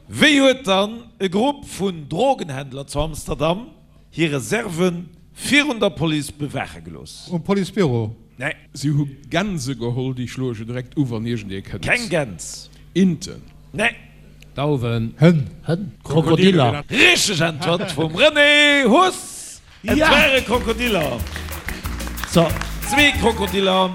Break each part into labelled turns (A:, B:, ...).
A: Wéi huet dann e Grupp vun Drogenhändler zu Amsterdam hir Reserve virun der Police bewaache gelooss?
B: Um Policebüro?
A: Nee.
C: Si hu Gänse geholl, déi schloe je direkt u wann iergendee kënnt.
A: Keng Gäns.
C: Inten.
A: Nee.
D: Dauwen.
B: Hënn.
D: Hënn. Krokodiller.
A: Richteg Äntwert vum René Huss! Et ware Krokodiller. Zwee Krokodiller,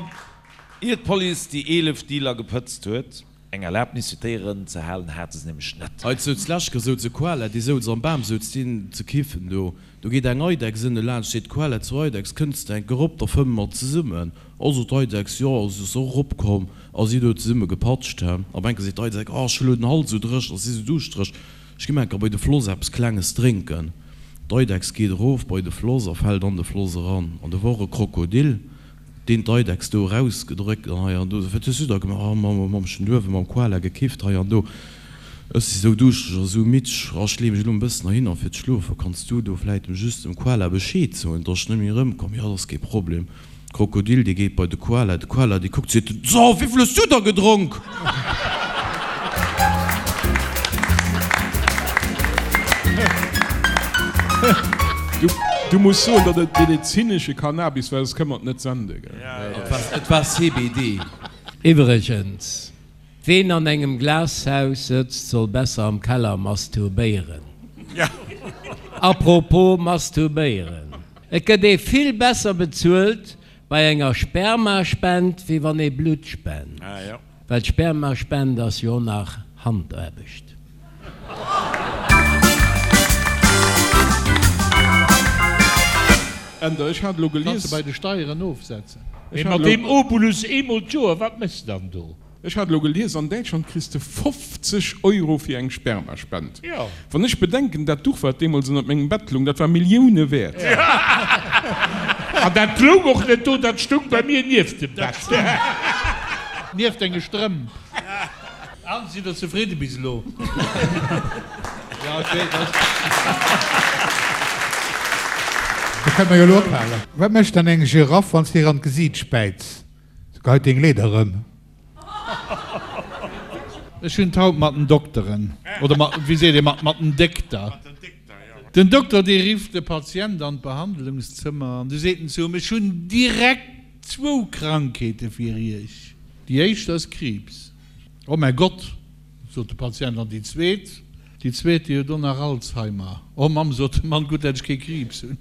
A: ier d'Police déi 11 Dealer gepëtzt huet. Eng Erlaabnis fir d'Déieren ze halen hate se nämlech net.
E: Hei souz Läschke souz e Koala, dee souz am Bam, souz deen ze kiffen do. Do geet eng Eidechs ënne laanscht, seet d'Koala zur Eidechs, Kënns de enk erop, da fëmme mer zesummen. Oh, sot d'Eidechs, jo, a si ass och eropkomm a si hu do zesumme gepatscht. He. Op enke seet d'Eidechs, Oh, ech hu lo den Hals esou dréchen, ech si sou duuschtereg, ech gi mer enker bei de Floss eppes Klenges drénken. D'Eidechs geet erof bei de Floss a fält an de Floss eran. An do wor e Krokodil. Deen d'Eidechs do erausgedréckt an hei an do. Wat hues du da gemaach? Ah, mam, mam ech hunn uewe mam Koala gekifft hei an do. Ech si sou duuschtereg a sou midd. Ah, ech lee mech elo en bëssen heihinner fir ze schlofen. Kanns du do vläit just dem Koala Bescheed soen, dass ech net méi erëmkomm? Jo, dat ass kee Problem. D'Krokodil, dee geet bei de Koala. De Koala, dee kuckt, seet, So, wéivill hues du da gedronk?
C: Du muss soen, datt et medezinesche Cannabis war, soss kënne mer et net sende, gell?
E: Et war CBD.
D: Iwwregens, Ween an engem Glashaus sëtzt, soll besser am Keller masturbéieren. Apropos masturbéieren, Et gëtt ee vill besser bezuelt bei enger Spermaspend, wéi wann ee Blutt spent. Well d'Spermaspend ass jo och nach Handaarbecht.
C: Änder, Ech hat elo
F: Kanns
C: gelies.
F: de bei de Steieren ofsetzen.
C: Ech
G: Mee
C: hat
G: mat deem
C: elo.
G: Obolus eemol d'Joer, wat méchs de dann do?
C: Ech hat elo gelies, an Däitschland kriss de 50 Euro fir eng Spermaspend. Wann ech bedenken, dat Duch wat deemools ënnert mengem Bett loung, dat war Millioune wäert.
G: An dat loung och net do, dat stoung bei mir nieft dem Bett.
F: Nieft denge Strëmp. An, sidd der zefridde bis elo? Jo, ech weess, dass.
B: Da kënne mer jo elo ophalen. Wat mécht dann eng Giraff, wann s de hir an d'Gesiit späiz? Se geheit deng Leeder erëm.
F: Ech hunn et haut mat den Dokteren, oder mat, wéi seet ee, mat den Dékter. Den Dokter, dee rifft de Patient an d'Behandlungszëmmer an du seet en zu him, Ech hunn direkt zwou Krankheete fir Iech. Déi éischt ass Kriibs. Oh mäi Gott! Sot de Patient, an déi zweet? Déi zweet, déi huet och nach Alzheimer. Oh Mamm, sot de Mann, gutt, dat ech kee Kriibs hunn.